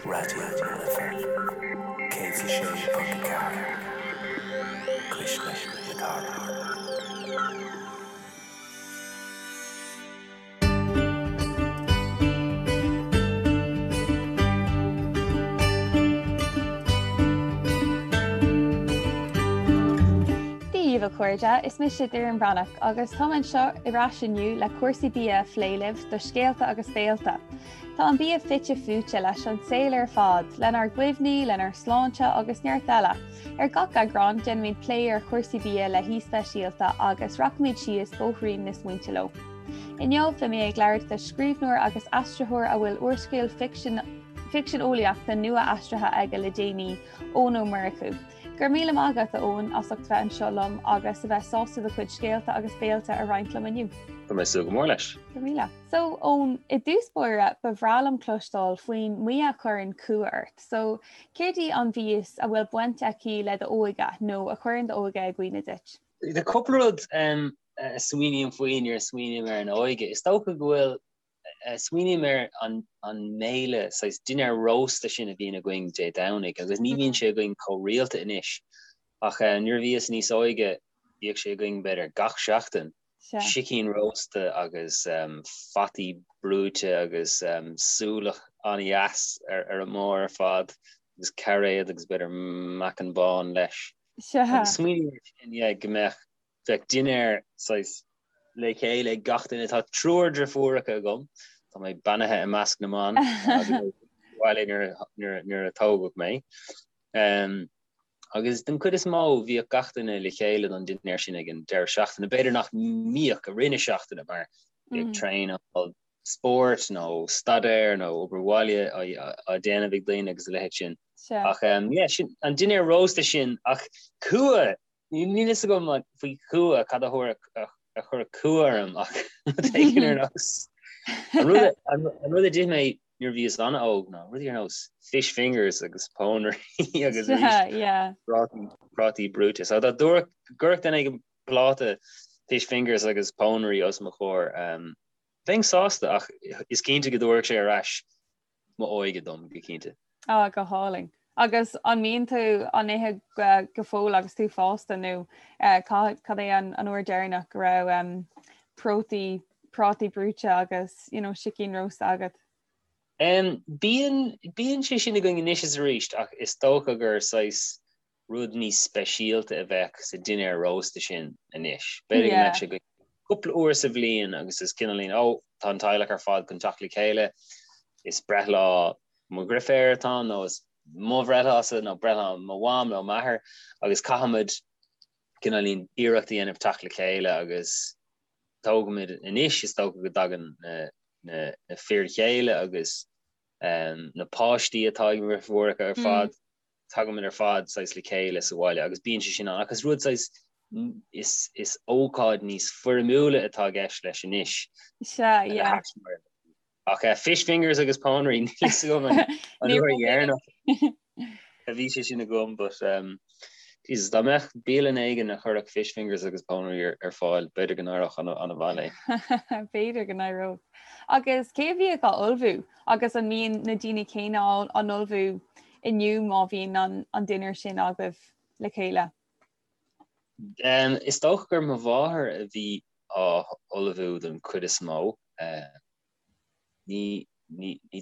Raidió na Life 106.4, Cuisle na Cathrach. Dia dhaoibh a chairde, is mise Doireann Bhreathnach agus táim anseo ar ais inniu le cúrsaí bia a phlé libh do Scéalta agus Béalta. Tá an bia fite fuaite leis an saol ar fad, lenár gcuimhní, lenár sláinte agus neart eile. Ar gach eagrán, déanaimid plé ar chúrsaí bia le haoi speisialta agus rachaimid síos bóithrín na smaointe leo. Inniu, beidh mé ag labhairt le scríbhneoir agus aistritheoir a bhfuil úrscéal ficsin ficsean eolaíochta nua aistrithe aige le déanaí, Eoin Ó Murchú. Go raibh míle maith agat, a Eoin, as ucht bheith anseo liom agus a bheith sásta do chuid scéalta agus béalta a roinnt liom inniu. Tá mé ag súil go mór leis. Go raibh míle. So, Eoin, i dtús báire, ba bhreá liom cloisteáil faoin mbia a chuireann cumha ort. So, céard í an mhias a bhfuil baint aici le d'óige nó a chuireann d'óige i gcuimhne duit? Tá cúpla rud a smaoiním faoi nuair a smaoiním ar an óige. Is dócha go bhfuil, smaoiním ar an mbéile, saghas dinnéar rósta sin a bhíonn againn Dé Domhnaigh agus ní bhíonn sé againn chomh rialta anois ach nuair a bhíos níos óige bhíodh sé againn b'fhéidir gach seachtain. sicín rósta agus fataí brúite agus súlach an-dheas ar an mbarr ar fad agus cairéad agus b'fhéidir meacan bán leis. Agus smaoiním air sin, yeah, go mbeadh, bheadh dinnéar saghas le chéile ag gach duine. Tá triúr driofúracha agam, tá mé beannaithe i measc na mban bhaile nuair a tógadh mé. Agus den chuid is mó, bhíodh gach duine le chéile don dinnéar sin ag an deireadh seachtaine. B'fhéidir nach mbíodh i rith na seachtaine mar bhíodh traenáil spóirt nó staidéar nó obair bhaile á déanamh ag daoine agus a leithéid sin. Ach yeah, sin an dinnéar rósta sin ach cumha! Níl fhios agam faoi chumha cad a chuirfeadh cumha orm ach rud éigin ar nós an rud a d'ith mé nuair a bhíos an-óg ná rudaí ar nós fish fingers agus pónairí agus prátaí brúite. So dá gcuirfeadh duine éigin pláta fish fingers agus pónairí os mo chomhair, bheinn sásta ach is cinnte go dtabharfadh sé ar ais m'óige dom, go cinnte. Á, go hálainn. Agus an mbíonn tú á n-ithe go fóill agus tú fásta nó cad é an uair deireanach go raibh prátaí prátaí brúite agus you know sicín rósta agat? Bíonn, bíonn sé sin againn anois is arís ach is dócha gur saghas rud níos speisialta a bheadh sa dinnéar rósta sin anois. B'fhéidir go mbeadh sé againn cúpla uair sa bhliain agus is cineáilín, ó, tá an teaghlach ar fad chun teacht le chéile, is breithlá mo dhriféar atá ann nó is mo bhreithlása nó breithlá mo mham nó m'athair agus caithfimid cineáilín iarracht a dhéanamh teacht le chéile agus tógaimid anois, is dócha go dtagann na fir chéile agus na páistí atá ag mo dhriféaracha ar fad. tagaimid ar fad saghas le chéile sa bhaile agus bíonn sé sin ann ach is rud saghas is is ócáid níos foirmiúla atá i gceist leis anois. Sea, yeah. Ach uh, fish fingers agus pónairí níl fhios agam an an uair dheireanach a bhí sé sin agam but um, Jesus, dá mbeadh bialann éigin a chuirfeadh fish fingers agus pónairí ar, ar fáil, b'fhéidir go n-éireodh an-mhaith léi. B'fhéidir go n-éireodh. Agus cé a bhíodh á ullmhú? Agus an mbíonn na daoine céanna á n-ullmhú inniu má bhíonn an dinnéar sin agaibh le chéile? Is dócha gur mo mháthair a bhí á ullmhú don chuid is mó. Ní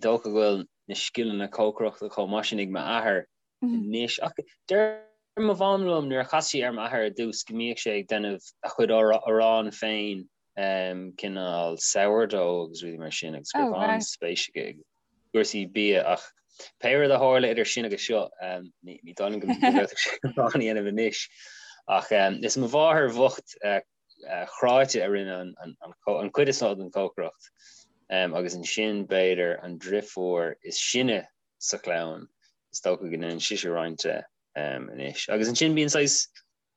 dócha go bhfuil na scileanna cócaireachta chomh maith sin ag m'athair anois. Ach deir mo mham liom nuair a chas sí ar m'athair ar dtús go mbíodh sé ag déanamh a chuid arán féin, cineál sourdough agus rudaí mar sin agus go raibh an-spéis aige i gcúrsaí bia ach pé rud a tharla idir sin agus seo, ní dóigh liom go bhféadfadh sé arán a dhéanamh anois. Ach is mo mháthair bhocht chráite a rinne an chuid is mó den chócaireacht agus ansin b'fhéidir an driofúr is sine sa chlann, is dócha go ndéanann sise roinnt de anois. Agus ansin bíonn saghas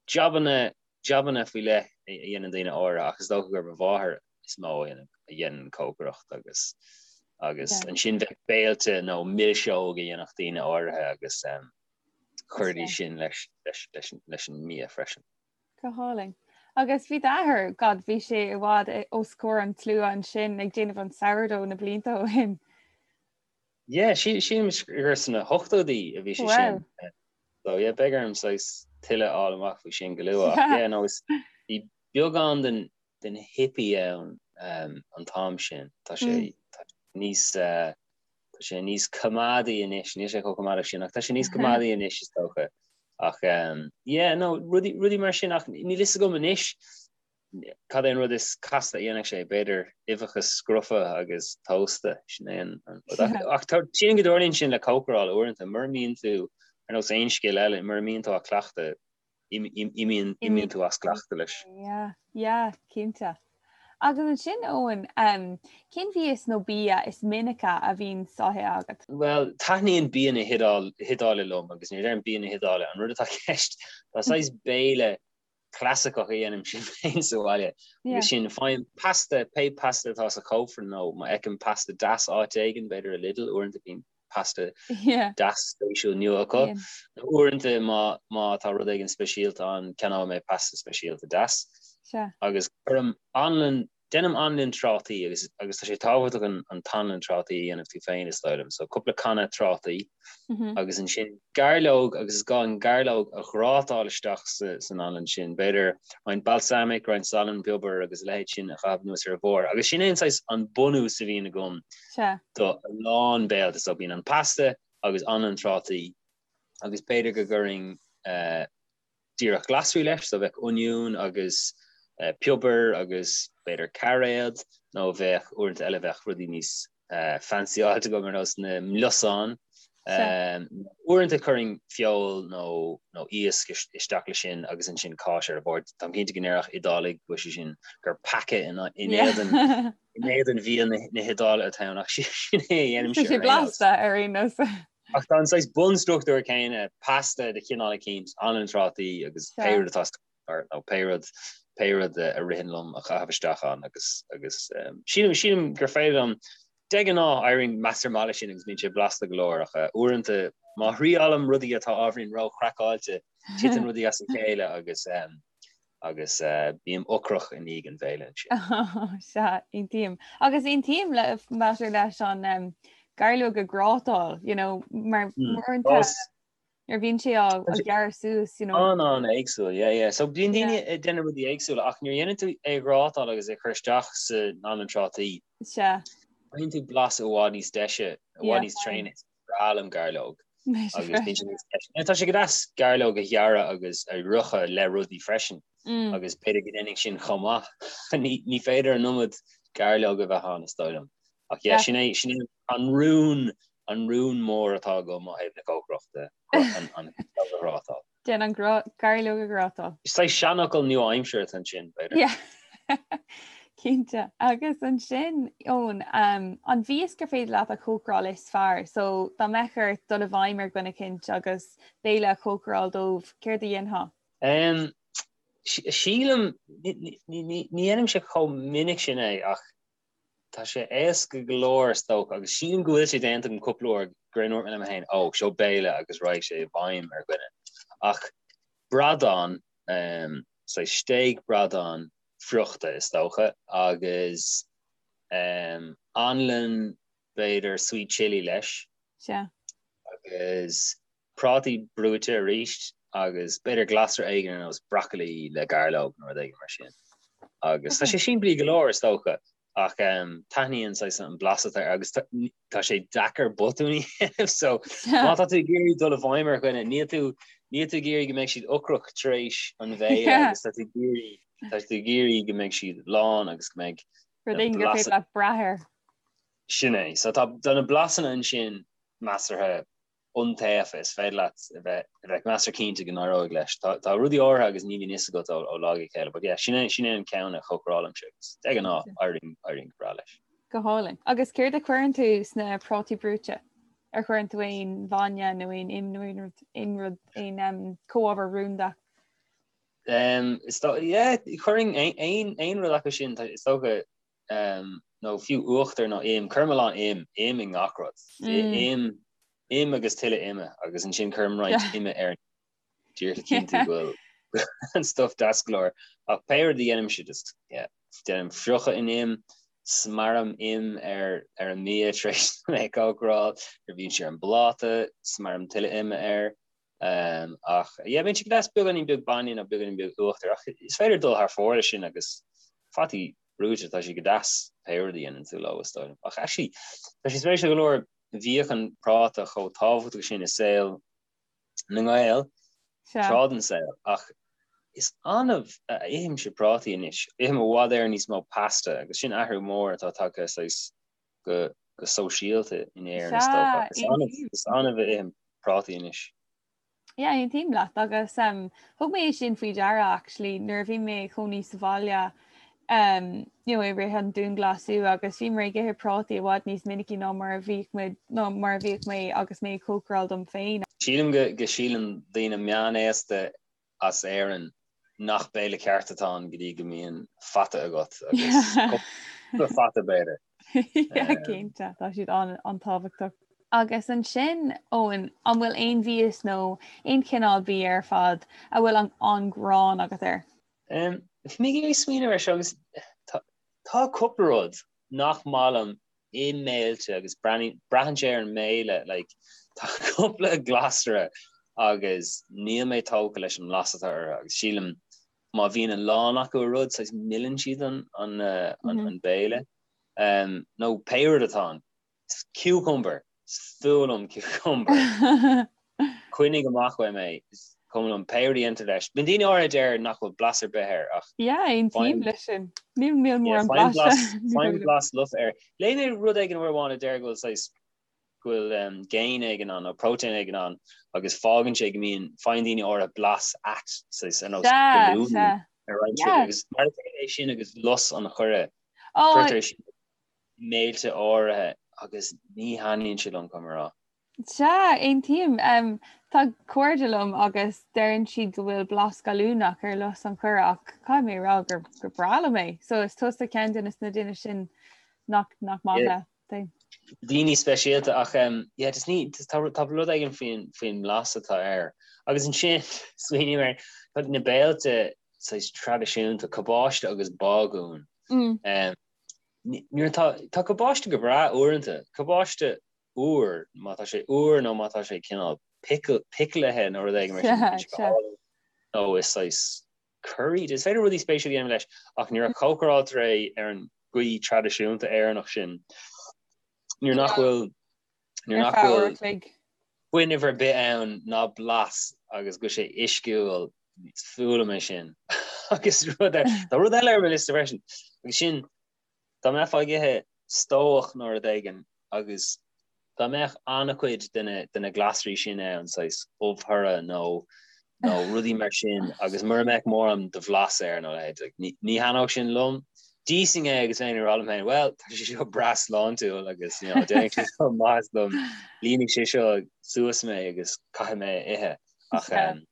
jabanna, jabanna faoi leith a dhéanann daoine áirithe ach is dócha gur mo mháthair is mó a dhéanann cócaireacht agus agus ansin bheadh béilte nó milseog a dhéanfadh daoine áirithe agus chuiridís sin leis leis leis leis an mbia freisin. Go hálainn. Agus bhí d'athair, God, bhí sé i bhfad os comhair an tslua ansin ag déanamh an sourdough na blianta ó shin. Yeah, sílim gur sna hochtóidí a bhí sé sin. So yeah, beidh orm saghas tuilleadh a fháil amach faoi sin go luath. Ach yeah, no, is bhí beagán den den hippie ann um, an t-am sin. Tá sé mm. tá níos uh, tá sé níos coimeádaí anois, níl sé chomh coimeádach sin, ach tá sé níos coimeádaí anois is dócha. Ach um, yeah, no, rudaí, rudaí mar sin ach níl fhios agam anois Cad é an rud is casta a dhéanfadh sé? B'fhéidir uibheacha scrofa agus tósta, sin é an rud. Ach sílim go dtarlaíonn sin le cócaráil uaireanta, mura mbíonn tú, ar nós aon scil eile, mura mbíonn tú á cleachtadh, imíonn tú as cleachtadh leis. Yeah, yeah, cinnte. Agus ansin, Eoin, cén mhias nó bia is minice a bhíonn á ithe agat? Bhuel, taitníonn bia na hIodáile liom agus nuair a deirim bia na hIodáile, an rud atá i gceist, tá saghas béile clasaiceach a dhéanaimse féin sa bhaile agus sin faighim pasta, pé pasta atá sa chófra nó má fheicim pasta deas áit éigin, b'fhéidir i Lidl, uaireanta bíonn pasta deas spéisiúil nua acu. Nó uaireanta má má tá rud éigin speisialta ann, ceannóidh mé pasta speisialta deas. Agus cuirim anlann Déanaim anlann trátaí agus agus tá sé tábhachtach an an t-anlann trátaí a dhéanamh tú féin is dóigh liom. So cúpla canna trátaí agus ansin gairleog agus is gá an gairleog a ghrátáil isteach sa san anlann sin. B'fhéidir roinnt balsamic, roinnt salann, piobar agus a leithéid sin a chaitheamh anuas ar a bharr. Agus sin é an saghas an bunús a bhíonn agam do a lán béilte. So bíonn an pasta agus anlann trátaí agus b'fhéidir go gcuirfinn eh, díreach glasraí leis, so bheadh oinniún agus piobar agus b'fhéidir cairéad, nó bheadh uaireanta eile bheadh rudaí níos fancyáilte agam ar nós na miosáin. Uaireanta chuirfinn feoil nó nó iasc isteach leis sin agus ansin cáis ar a bharr. Táim cinnte go ndéarfadh Iodálaigh go bhfuil sé sin gur peaca in éadan in éadan bhia na hIodáile atá ann ach sin é a dhéanaimse. Tá sé blasta ar aon nós. Ach tá an saghas bunstruchtúr céanna, pasta de chineál eicínt, anlann trátaí agus pé rud atá sa nó pé rud, pé rud a ritheann liom a chaitheamh isteach ann agus, agus sílim, sílim gur féidir liom, de ghnáth éiríonn measartha maith leis sin agus bíonn sé blasta go leor ach uaireanta má thriailim rudaí atá ábhairín ró-chraiceáilte, titeann rudaí as a chéile agus agus bím ocrach i ndiaidh an bhéile ansin. Sea, aontaím. Agus aontaím le maidir leis an gairleog a ghrátáil, you know, mar uaireanta nuair a bhíonn sé á ghearradh suas, you know. An-an-éagsúil, yeah, yeah. So bíonn daoine ag déanamh rudaí éagsúla ach nuair a dhéanann tú é a ghrátáil agus é a chur isteach san anlann trátaí, Sea. faigheann tú blas i bhfad níos deise, i bhfad níos tréine. breá liom gairleog agus bíonn sé níos deise. Tá sé go deas gairleog a ghearradh agus a fhriochadh le rudaí freisin mm. agus b'fhéidir go ndéanfainn sin chomh maith. Ní féidir an iomad gairleog a bheith ann is dóigh liom. Ach yeah, sin é sin é an rún an rún mór atá agam ó thaobh na cócaireachta an an ghrátáil. Déan an gairleog a ghrátáil. Is saghas seanfhocal nua-aimseartha atá ansin, b'fhéidir. Yeah. Cinnte. Agus ansin, Eoin, um, an mhias gur féidir leat a chócaráil is fearr? So, dá mbeadh ort dul i bhfeidhm ar dhuine eicínt agus béile a chócaráil dóibh, céard a dhéanfá? Um, sílim, ní dhéanaimse chomh minic sin é ach Tá sé éasca go leor is dócha agus sílim go bhfuil sé déanta agam cúpla uair gur ndúirt mé liom féin, ó, seo béile agus raghaidh sé i bhfeidhm ar dhuine. Ach bradán, um, saghas stéig bradán friochta is dócha agus um, anlann b'fhéidir sweet chilli leis. Sea. Agus prátaí brúite arís agus b'fhéidir glasra éigin ar nós broccoli le gairleog nó rud éigin mar sin. Agus tá sé simplí go leor is dócha ach taitníonn saghas an blas atá air agus tá sé deacair botún a dhéanamh so má tá tú ag iarraidh dul i bhfeidhm ar dhuine níl tú níl tú ag iarraidh go mbeidh siad ocrach tar éis an bhéile agus tá tú ag iarraidh tá tú ag iarraidh go mbeidh siad lán agus go mbeidh rud éigin gur féidir leat brath air. Sin é. So tá na blasanna ansin measartha iontaofa, is féidir leat a bheith a bheith measartha cinnte go n-éireoidh leis. Tá tá rudaí áirithe agus ní bhíonn fhios agat ó ó lá go chéile, but yeah, sin é sin é an ceann a chócarálaimse agus de ghnáth éiríonn éiríonn go breá leis. Go hálainn. Agus céard a chuireann tú sna prátaí brúite? Ar chuireann tú aon bhainne nó aon im nó aon rud aon rud aon um, comhábhar rúnda? Um, is dó yeah, chuirfinn aon aon aon rud acu sin, tá- is dócha um, nó fiú uachtar nó im, cuirim a lán im, im i ngach rud. Mm. Im, im agus tuilleadh ime agus ansin cuirim roinnt ime air díreach le cinntiú go bhfuil an stuff deas go leor. Ach pé rud a dhéanaimse just yeah, déanaim friochadh in im. Smearaim im ar ar an mbia tar éis dom é a chócaráil, nuair a bhíonn sé ar an bpláta, smearaim tuilleadh ime air. Ach yeah, bíonn sé go deas beagáinín beag bainne nó beagáinín beag uachtair ach is féidir dul thar fóir leis sin agus fataí brúite, tá sé go deas pé rud a dhéanann tú leo is dóigh liom. Ach actually, tá sé spéisiúil go leor, bhíodh an práta chomh tábhachtach sin i saol na nGael tráth den saol ach is annamh a ithimse prátaí anois. Ithim i bhfad Éireann níos mó pasta agus sin athrú mór atá tagtha saghas go go sóisialta in Éirinn is dócha. Is annamh is annamh a ithim prátaí anois. Yeah, aontaím leat agus um, thug mé sin faoi deara actually nuair a bhí mé i mo chónaí sa bhaile um, you know, i rith an dianghlasáil agus bhíomar ag ithe prátaí i bhfad níos minicí ná mar a bhíodh muid ná mar a bhíodh mé agus mé ag cócaráil dom féin. Sílim go go síleann daoine meánaosta as Éirinn nach béile ceart atá ann go dtí go mbíonn fata agat agus cúpla fata b'fhéidir. Yeah, cinnte, tá siad an-tábhachtach. Agus ansin, Eoin, an bhfuil aon mhias nó aon chineál bia ar fad a bhfuil an an-ghráin agat air? Bhí mé ag smaoineamh air seo agus tá cúpla rud nach maith liom i mbéilte agus braitheann sé ar an mbéile like tá cúpla glasra agus níl mé tógtha leis an mblas atá orthu agus sílim má bhíonn a lán acu i rud saghas milleann siad an an béile nó pé rud atá ann. Cucumber! Is fuath liom cucumber. Coinnigh amach uaim é. Is cuma liom pé rud a dhéantar leis. Bíonn daoine áirithe a deir nach bhfuil blas ar bith air ach. Yeah, aontaím leis sin. Níl níl mórán blais. Faighim blas lofa air. Léigh mé rud éigin uair amháin a deir go bhfuil saghas go bhfuil géin éigin ann nó próitéin éigin ann agus fágann sé go mbíonn faigheann daoine áirithe blas ait saghas ar nós galúin ar roinnt rudaí agus mar a chéile é sin agus lus an choire. Cuirtear sin i mbéilte áirithe agus ní thaitníonn sé liom, caithfidh mé a rá. Sea, aontaím. Tá cairde liom agus deireann siad go bhfuil blas gallúnach ar lus an choire ach caithfidh mé a rá gur gur breá liom é. So is tusa ceann de na daoine sin nach nach maith leat é. Daoine speisialta ach yeah just ní tá tá rud éigin faoin faoin mblas atá air. Agus ansin smaoiním ar tá na béilte saghas traidisiúnta, cabáiste agus bágún. Nuair atá, tá cabáiste go breá uaireanta, cabáiste úr, má tá sé úr nó má tá sé cineál piclithe nó rud éigin mar sin, bíonn sé go hálainn nó is saghas curry, is féidir rudaí spéisiúla a dhéanamh leis ach nuair a chócaráiltear é ar an gcaoi traidisiúnta Éireannach sin, nuair nach bhfuil, nuair nach bhfuil fuinneamh ar bith ann ná blas agus go bhfuil sé uisciúil, is fuath liom é sin. Agus rud ar, tá rud eile ar mo liosta freisin, agus sin, dá mbeifeá ag ithe stobhach nó rud éigin agus dá mbeadh an-chuid de na, de na glasraí sin ann, saghas ubh thorra nó, nó rudaí mar sin agus mura mbeadh mórán de bhlas air nó a leithéid, like, ní, ní thaitneodh sin liom. D'íosfainn é agus bheinn ag rá liom féin, well, tá sé seo breá sláintiúil agus, you know, déanfaidh sé seo maitheas dom, líonfaidh sé seo suas mé agus caithfidh mé a ithe. Ach, um,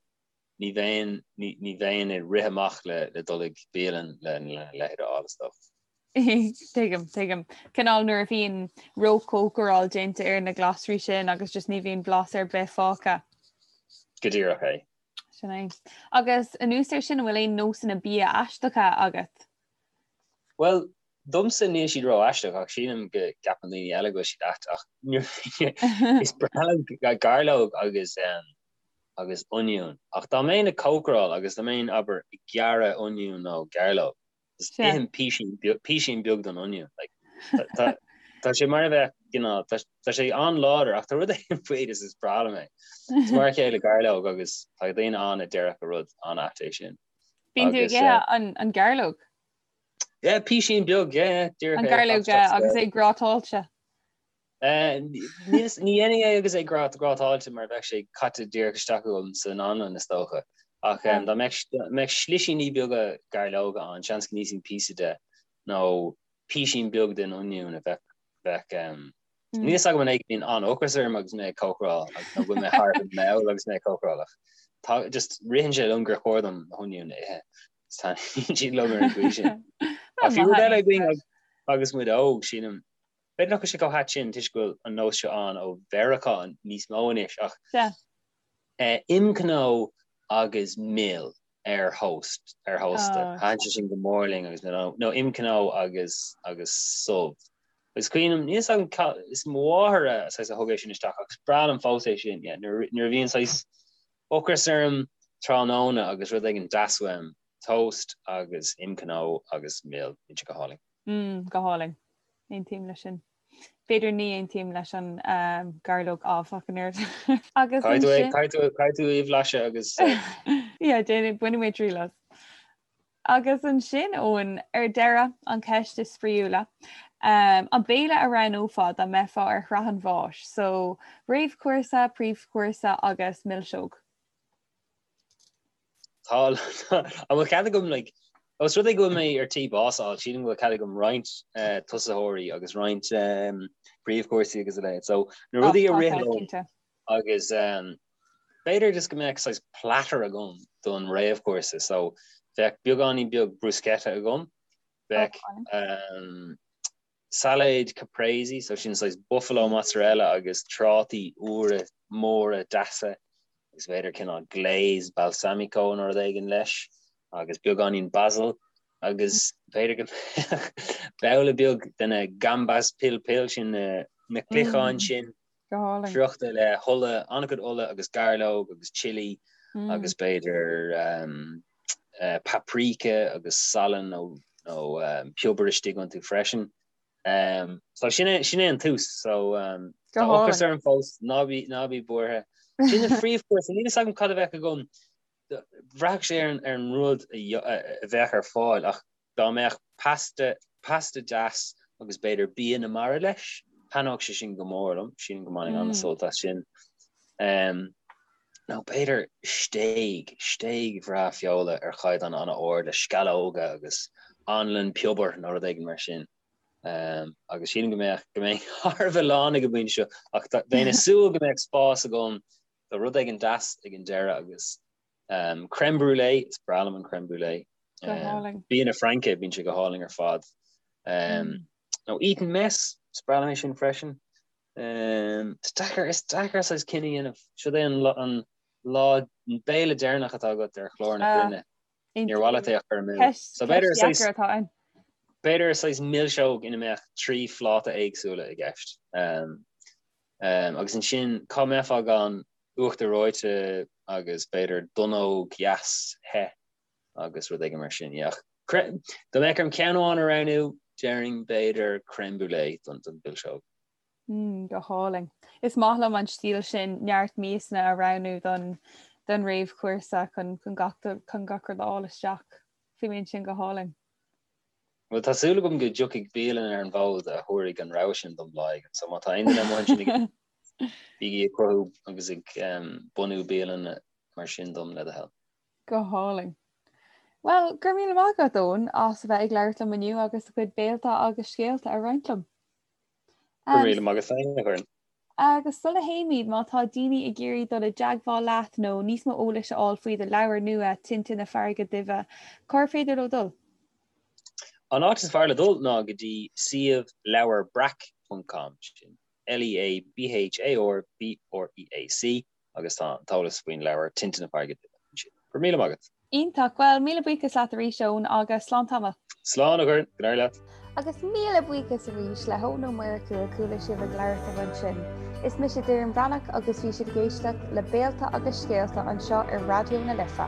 ní bheinn, ní, ní bheinn ag rith amach le, le dul ag bialann le, le leithéid a fháil is dócha. Tuigim, tuigim. Cineál nuair a bhíonn róchócaráil déanta ar na glasraí sin agus just ní bhíonn blas ar bith fágtha. Go díreach é. Sin é. Agus anuas air sin, an bhfuil aon nósanna bia aisteacha agat? Bhuel, domsa níl siad ró-aisteach ach sílim go gceapann daoine eile go bhfuil siad ait ach is breá liom gairleog agus agus oinniún. Ach dá mbeinn ag cócaráil agus dá mbeinn, abair, ag gearradh oinniún nó gairleog, just ithim písín písín beag den oinniún. Like, tá tá sé mar a bheadh, you know, tá tá sé an-láidir ach tá rud éigin faoi is is breá liom é. Is mar a chéile gairleog agus tá daoine ann a déarfadh gur rud an-ait é sin. Bíonn tú ag ithe an an gairleog? Yeah, písín beag, yeah, díreach An é, gairleog agus é grátáilte. Ní dhéanfainn é agus é grátáilte mar bheadh sé caite díreach isteach agam san anlann is dócha. Ach dá mbeadh slisíní beaga gairleoga ann, seans go n-íosfainn píosa de nó písín beag den oinniún a bheadh bheadh Níl a fhios agam an é go mbíonn an-ocras orm agus mé ag cócaráil nó go bhfuil mé thar a bheith mall agus mé ag cócaráil ach tá just ritheann sé liom gur chóir dom na hoinniúin a ithe. Taitníonn siad liom ar an gcaoi sin. Ach bhí rud eile againn agus muid óg, sílim, B'fhéidir nach bhfuil sé chomh hait sin toisc go bhfuil an nós seo ann ó Mheiriceá níos mó anois ach imchnó agus mil. Ar thost, ar thósta. Thaitin sé sin go mór linn agus nó nó im cnó agus agus subh. Is cuimhin liom, níl 'fhios agam ca, is mo mháthair a saghas a thug é sin isteach ach is breá liom fós é sin, yeah, nuair nuair a bhíonn saghas ocras orm tráthnóna agus rud éigin deas uaim, toast agus im cnó agus mil, bíonn sé go hálainn. Mm, go hálainn. Aontaím leis sin. B'fhéidir ní aontaím leis an gairleog áfach an oiread. Agus ansin. Caithfidh tú í a bhlaiseadh agus. Yeah, déanfaidh, bainfidh mé triail as. Agus ansin, Eoin, ar deireadh, an cheist is spraíúla. An béile a roghnófá dá mbeifeá ar shraith an bháis? So, réamhchúrsa, príomhchúrsa agus milseog. Tá, an bhfuil cead agam like, os rud é go bhfuil mé ar tí bás a fháil, sílim go bhfuil cead agam roinnt eh, tosaitheoirí agus roinnt um, príomhchúrsaí agus a leithéid. So na rudaí a rith liom agus um, b'fhéidir just go mbeadh saghas platter agam don réamhchúrsa. So bheadh beagáinín beag bruschetta agam, bheadh um, Sailéad caprese, so sin saghas buffalo mozzarella agus trátaí úra móra deasa agus b'fhéidir cineál glaze balsamico nó rud éigin leis agus beagáinín basil agus b'fhéidir go mbeadh babhla beag de na gambas pil pil sin na cloicheáin sin friochta le hola, an-chuid ola agus gairleog agus chilli agus b'fhéidir paprika agus salann nó nó piobar istigh iontu freisin. So sin é sin é an tús. So tá ocras orm fós, ná bí ná bí buartha. Sin an phríomhchúrsa, níl fhios agam cad a bheadh agam. Bhraithfeadh sé ar an ar an rud a bheadh ar fáil ach Dá mbeadh pasta, pasta deas agus b'fhéidir bia na mara leis, thaitneodh sé sin go mór liom, sílim go mbainfinn an-sult as sin. Nó b'fhéidir stéig, stéig bhreá feola ar chaighdeán an-ard le sceallóga agus anlann piobair nó rud éigin mar sin. Agus sílim go mbeadh, go mbeinn thar a bheith lán ag an bpointe seo ach bheinn ag súil go mbeadh spás agam do rud éigin deas ag an deireadh agus Crème brûlée, is breá liom an crème brûlée. Go hálainn. Bia na Fraince, bíonn sé go hálainn ar fad. Nó Eton mess, is breá liom é sin freisin. Is deacair, is deacair saghas cinneadh a dhéanamh. Siod é an an lá, an béile deireanach atá agat ar chlár na cruinne. Níor mhaith leat é a chur amú. So b'fhéidir saghas, atá ann. B'fhéidir saghas milseog ina mbeadh 3 phláta éagsúla i gceist. Agus ansin, cá mbeifeá gan uachtar reoite agus b'fhéidir donnóg dheas the agus rud éigin mar sin. Yeah. Dá mbeadh orm ceann amháin a roghnú, déarfainn b'fhéidir crème brûlée don don mhilseog. Mm, go hálainn. Is maith liom an stíl sin neart miasanna a roghnú don don réamhchúrsa chun chun gach chun gach rud a fháil isteach. Fuaimníonn sin go hálainn. Bhuel, tá súil agam go dtiocfaidh bialann ar an bhfód a thabharfaidh an rogha sin dom lá éigin. So má tá aon duine amuigh ansin ag Bígí ag cruthú agus ag bunú bialanna mar sin dom le do thoil. Go hálainn. Bhuel, go raibh míle maith agat, Eoin, as a bheith ag labhairt liom inniu agus do chuid béalta agus scéalta a roinnt liom. Go raibh míle maith agat féin, a Dhoireann. Agus sula théimid, má tá daoine ag iarraidh dul i dteagmháil leat nó níos mó eolais a fháil faoi do leabhar nua, Tinte na Farraige Duibhe, cár féidir leo dul? An áit is fearr le dul ná go dtí suíomh leabharbreac ponc com, sin L-E-A-B-H-A-R-B-R-E-A-C agus tá an t-eolas faoin leabhar Tinte na Farraige Duibhe ansin. Go raibh míle maith agat. Iontach. Bhuel, míle buíochas leat arís, Eoin, agus slán tamall. Slán, a Dhoireann. Go n-éirí leat. Agus míle buíochas arís le hEoin Ó Murchú a chuala sibh ag labhairt liom ansin. Is mise Doireann Bhreathnach agus bhí sibh ag éisteacht le Béalta agus Scéalta anseo ar Raidió na Life.